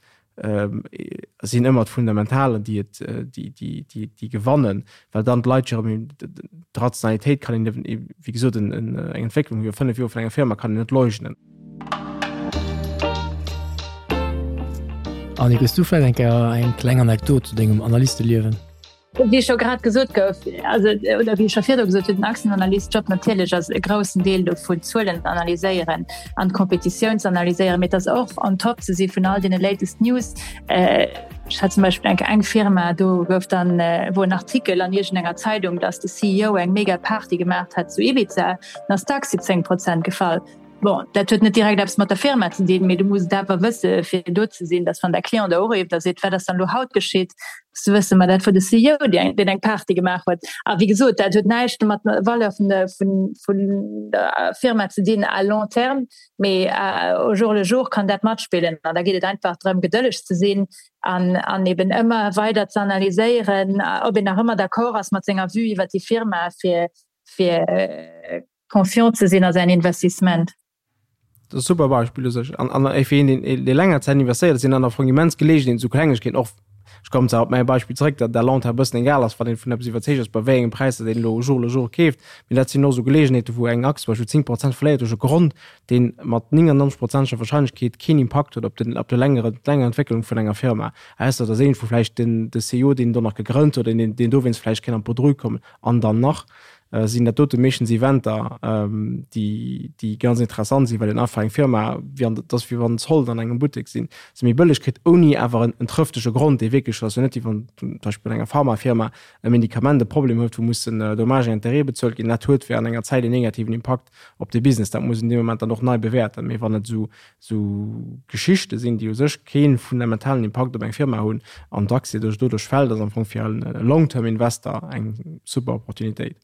D: sinn ëmmer d'Fundamentalen, déi et, déi, déi, déi, déi gewannen, well dann d'Leit jo erëm, d'Rationalitéit kann een, wéi gesot, eng Entwécklung iwwer 5 Joer vun enger Firma kann een net leugnen.
A: Annick, hues du vläicht eng Kéier eng kleng Anekdot zu dengem Analysteliewen?
C: Wéi scho grad gesot gouf, also oder wéi ech scho virdru gesot hunn, den Aktienanalyst-Job natierlech ass e groussen Deel dovun d'Zuelen ze analyséieren an d'Kompetitioun ze analyséieren, mee et ass och on top ze si vun all deene latest News. Ech hat zum Beispill eng eng Firma, do gouf dann wor en Artikel an iergendenger Zeidung, datt de CEO eng mega Party gemaacht hätt zu Ibiza, dann ass d'Aktie 10 Prozent gefall. Bon, dat huet net direkt eppes mat der Firma ze dinn, mee du muss et awer wësse fir do ze sinn, datt wann däi Client der urifft a seet, wat ass dann elo haut geschitt, muss du wëssen, ma dat wor de CEO, deen eng Party gemaach huet. A wéi gesot, dat huet näischt mat der Valeur vun der, vun, vun der Firma ze dinn à long terme, mee au jour le jour kann dat matspillen. An da geet et einfach drëm, gedëlleg ze sinn an, an eben ëmmer weider ze analyséieren, ob een nach ëmmer d'accord ass mat senger Vue iwwer déi Firma, fir, fir confiant ze sinn a säin Investissement.
D: Dat ass e super Beispill u sech. An, an fir een, deen, dee länger Zäit investéiert, sinn dann am Fong immens Geleegenheeten, esou Klengegkeeten och, ech kommen zwar op mäi Beispill zréck, datt à long terme e bëssen egal ass, wann een vun eppes iwwerzeegt ass, bei wéi engem Präis datt een elo jour le jour keeft, mee dat sinn och esou Geleegenheeten, wou eng Aktie zum Beispill 10 Prozent verléiert duerch e Grond, dee mat 99 prozenteger Warscheinlechkeet keen Impakt huet op den, op de längere, d'länger Entwécklung vun enger Firma, ausser et ass iergendwou vläicht den, de CEO, deen do nach gegrënnt huet, deen, deen dowéinst vläicht kéint an d'Bredouille kommen an dann nach. sinn dat dote meeschtens Eventer, déi, déi ganz interessant sinn, well een einfach eng Firma, wéi an, dat ass wéi wann Zollen an engem Buttek sinn, se méi bëlleg kritt, ouni awer en, en trëftege Grond, dee wierklech, ass jo net wéi wann zum Beispill bei enger Pharmafirma e Medikament e Problem huet, wou mussen Dommages et intérêts bezuelt ginn. Dat huet während enger Zäit en negativen Impakt op de Business. Dat muss een dee Moment dann och nei bewäerten. Mee wann et esou, esou Geschichte sinn, déi u sech kee fundamentalen Impakt op eng Firma hunn an d'Aktie duerch doduerch fält, ass am Fong fir e Long-Term Investor eng super Opportunitéit.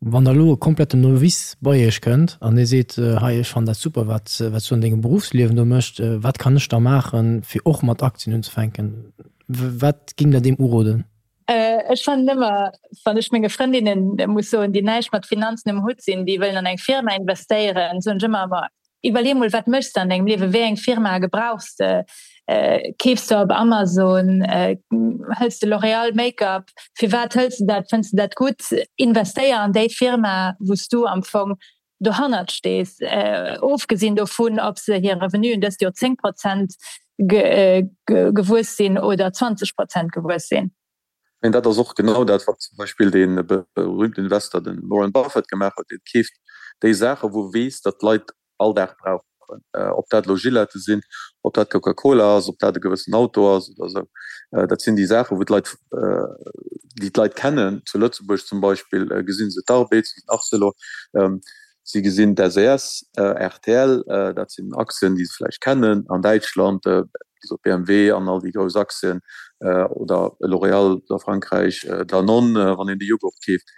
A: Wann da elo e kompletten Novice bei Iech kënnt an dee seet, hei ech fannen dat super wat s du an dengem Beruffsliewen do méchs, wat kann ech da maachen fir och mat Aktien unzefänken? Wat géingt der deem uroden?
C: Ech fannen ëmmer, wann ech menge Frëndinnen muss soen, déi näischt mat Finanzen um Hutt sinn, déi wëllen an eng Firma investéieren, soen ech ëmmer, ma iwwerlee mol, wat méchs de an dengem Liewen, wéi eng Firma gebrauchs de, keefs de op Amazon, hëls de L'Oréal Make-up, firwat hëls de dat, fënns de dat gutt? Investéier an déi Firma, wou s du am Fong dohannert stees, ofgesinn dovun, ob se hir Revenuen dëst Joer 10 Prozent gewuess sinn oder 20 Prozent gewuess sinn.
E: Mä dat ass och genau dat, wat zum Beispill dee berühmten Investor, de Warren Buffett, gemaach huet. Dee keeft déi Saachen, wou e weess, datt d'Leit all Dag brauchen. Ob dat elo Gillette sinn, ob dat Coca-Cola ass, ob dat e gewëssen Auto ass oder esou. Dat sinn déi Saachen, wou d'Leit, déi d'Leit kennen. Zu Lëtzebuerg zum Beispill gesinn se d'Arbed, se gesinn Arcelor, se gesinn d'SES, rtl, dat sinn Aktien, déi se vläicht kennen. An Däitschland, wéi gesot, BMW an all déi grouss Aktien oder L'Oréal a Frankräich, Danone, wann een de Joghurt keeft.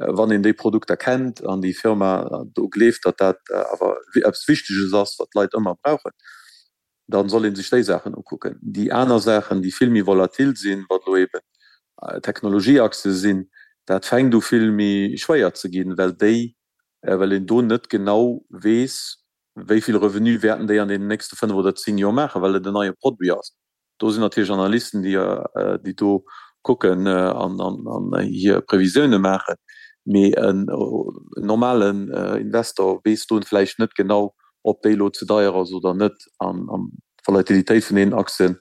E: Wann een déi Produkter kennt an déi Firma do gleeft, datt dat awer eppes Wichteges ass, wat d'Leit ëmmer brauchen, da soll ee sech déi Saachen ukucken. Déi aner Saachen, déi vill méi volatil sinn, wat elo eeben Technologieaktie sinn, dat fänkt u vill méi schwéier ze ginn, well déi, well een do net genau weess, wéi vill Revenu wäerten déi an deenen nächste 5 oder 10 Joer maachen, well et en neie Produit ass. Do sinn natierlech Analysten, déi do kucken an hir Previsioune maachen. Mee en normalen Investor weess do vläicht net genau, ob déi elo ze deier ass oder net. An d'Volatilitéit vun deenen Aktien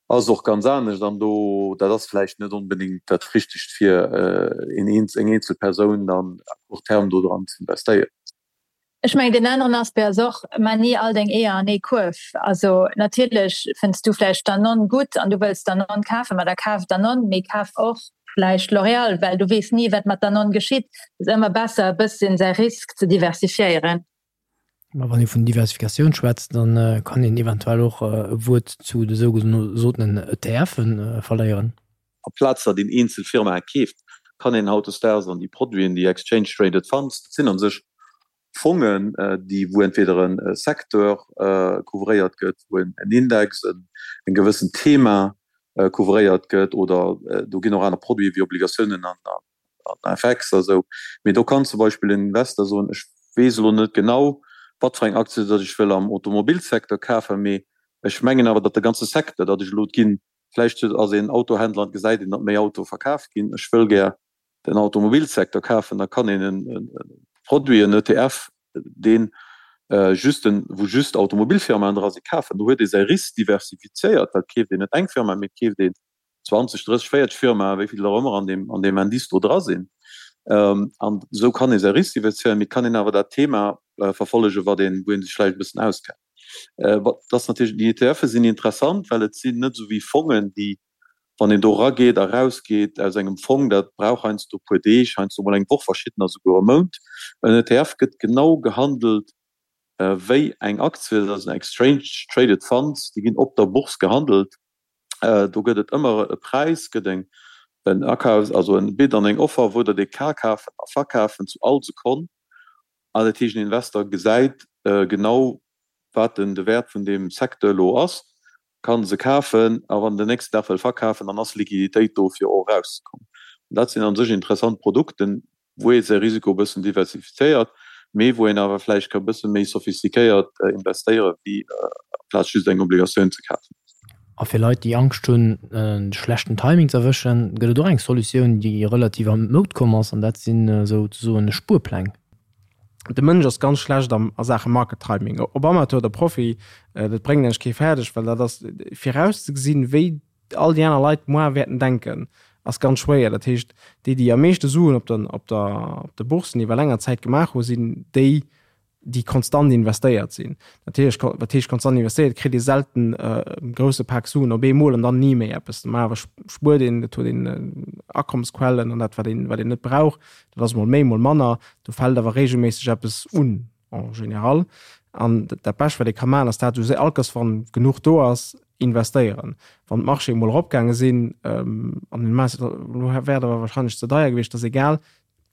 E: ass och ganz anescht. An do, dat ass vläicht net onbedéngt dat Richtegt fir eng eenzel Persoun dann à court terme do dran ze investéieren.
C: Ech mengen, deen aneren Aspect ass och, Maa ni all deng Eeër an ee Kuerf. Also natierlech fënns du vläicht Danone gutt an du wëlls Danone kafen, ma da kaf Danone, mee kaf och vläicht L'Oréal, well du weess ni, wat mat Danone geschitt. Et ass ëmmer besser, e bësschen säi Risk ze diversifiéieren.
A: Ma wann ee vun Diversifikatioun schwätzt, da kann een eventuell och e Wuert zu de sougesotenen ETFe verléieren.
E: Amplaz datt een eenzel Firmae keeft, kann een hautdesdaags an déi Produiten, déi Exchange Traded Funds, dat sinn a sech Fongen, déi wou entweder e Secteur couvréiert gëtt, wou en Index, en gewëssent Thema couvréiert gëtt, oder do ginn och aner Produite wéi Obligatiounen an FX a sou. Mee do kann zum Beispill en Investor soen, ech weess elo net genau, wat fir eng Aktie datt ech wëll am Automobilsecteur kafen, mee. Ech mengen awer, datt de ganze Secteur, datt ech elo ginn, vläicht ass een Autohändler an gesäit een, datt méi Autoe verkaf ginn, ech wëll gär den Automobilsecteur kafen, da kann een e Produit, en ETF, deen just en, wou just Automobilfirmaen dra sinn, kafen. Do huet ee säi Risk diversifizéiert, well et keeft een net eng Firma, mee et keeft een 20, 30, 40 Firmaen, wéi vill der och ëmmer an deem, an deem Indice do dra sinn. An esou kann ee säi Risk diversifizéieren, mee et kann een awer dat Thema verfollegen, wat een, wou ee sech vläicht e bëssen auskennt. Wat ass natierlech, déi ETFe sinn interessant, well et sinn net esou wéi Fongen, déi, wann een do erageet a rausgeet aus engem Fong, dat brauch heiansdo e puer Deeg, heiansdo mol eng Woch, verschiddener souguer e Mount. En ETF gëtt genau gehandelt wéi eng Aktie, dat ass en Exchange Traded Fund, déi ginn op der Bourse gehandelt. Do gëtt et ëmmer e Präis, gëtt eng en Akafs, also en Bid an eng Offer, wou der dee ka kafen a verkafen zu all Sekonn. An dat heescht, en Investor gesäit genau, wat den de Wäert vun deem Secteur elo ass, ka se kafen a wann en den nächsten Dag wëll verkafen, dann ass Liquiditéit do, fir och erauszekommen. An dat sinn a sech interessant Produkten, wou ee säi Risiko e bëssen diversifizéiert, mee wou een awer vläicht ka e bësse méi sophistiquéiert investéieren, wéi amplaz just eng Obligatioun ze kafen.
A: A fir Leit, déi Angscht hunn, de schlechten Timing ze erwëschen, gëtt et och eng Solutioun, déi relativ an d'Moud komm ass, an dat sinn esouzesoen Spuerpläng.
D: De Mënsch ass ganz schlecht am a Saache Market Timing, ob Amateur oder Profi, dat bréngt eigentlech kee fäerdeg, well dat ass virauszegesinn, wéi all déi aner Leit moar wäerten denken, ass ganz schwéier. Dat heescht, déi, déi am meeschte Suen op der op der op de Boursen iwwer länger Zäit gemaach hu sinn déi, déi konstant investéiert sinn. Natierlech, wat heescht konstant investéiert, kritt ee selten e grousse Pak Suen op eemol an dann ni méi eppes. Normalerweis spuert een, et huet een Akommesquellen an dat wat een, wat een net brauch, dat ass mol méi, mol manner. Do fält awer reegelméisseg eppes un en général. An dat Bescht wat ee ka maachen ass dat, esou all Kéiers wann genuch do ass, investéieren. Wann d'Marchéë mol eropgaange sinn, an den elo wär et awer warscheinlech ze deier gewiescht, ass egal,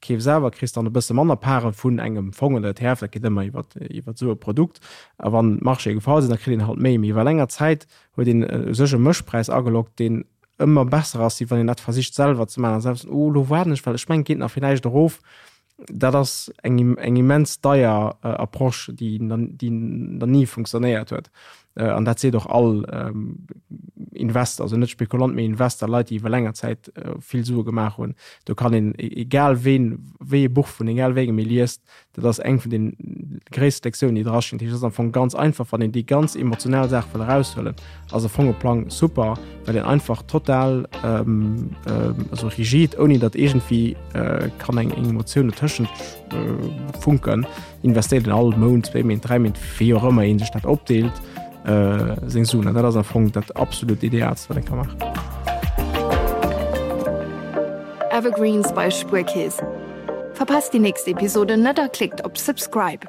D: Keefs awer, kriss dann e bësse manner Paren vun engem Fong oder ETF, dat geet ëmmer iwwer iwwer esou e Produkt. A wann d'Marchéë gefall sinn, da kritt een halt méi. Mee iwwer länger Zäit huet een u sech e Mëschpräis ageloggt, deen ëmmer besser ass, wéi wann een dat versicht selwer ze maachen a selwer ze soen, oh elo waarden ech, well ech mengen et geet nach villäicht erof. Dat ass eng eng immens deier Approche, déi déi nach ni funktionéiert huet. An dat seet och all Investor, also net Spekulant, mee Investor, Leit, déi iwwer länger Zäit vill Sue gemaach hunn. Do kann een, egal ween, wéi ee Buch vun egal wéi engem ee liest, dat ass eng vun de gréisste Lektiounen, déi drastinn. Dat heescht, et ass am Fong ganz einfach, wann een déi ganz emotional Saach wëll eraushuelen, ass e Fongeplang super, well een einfach total, also rigid, ouni datt iergendwéi kann eng Emotioun dotëschent funken, investéiert een all Mount, zwéi Méint, dräi Méint, wéi och ëmmer een sech dat opdeelt, seng Suen. An dat ass am Fong dat absolut Idealst, wat een ka maachen.
B: Evergreens bei Spuerkeess. Verpasst déi nächst Episode net a klickt op Subscribe.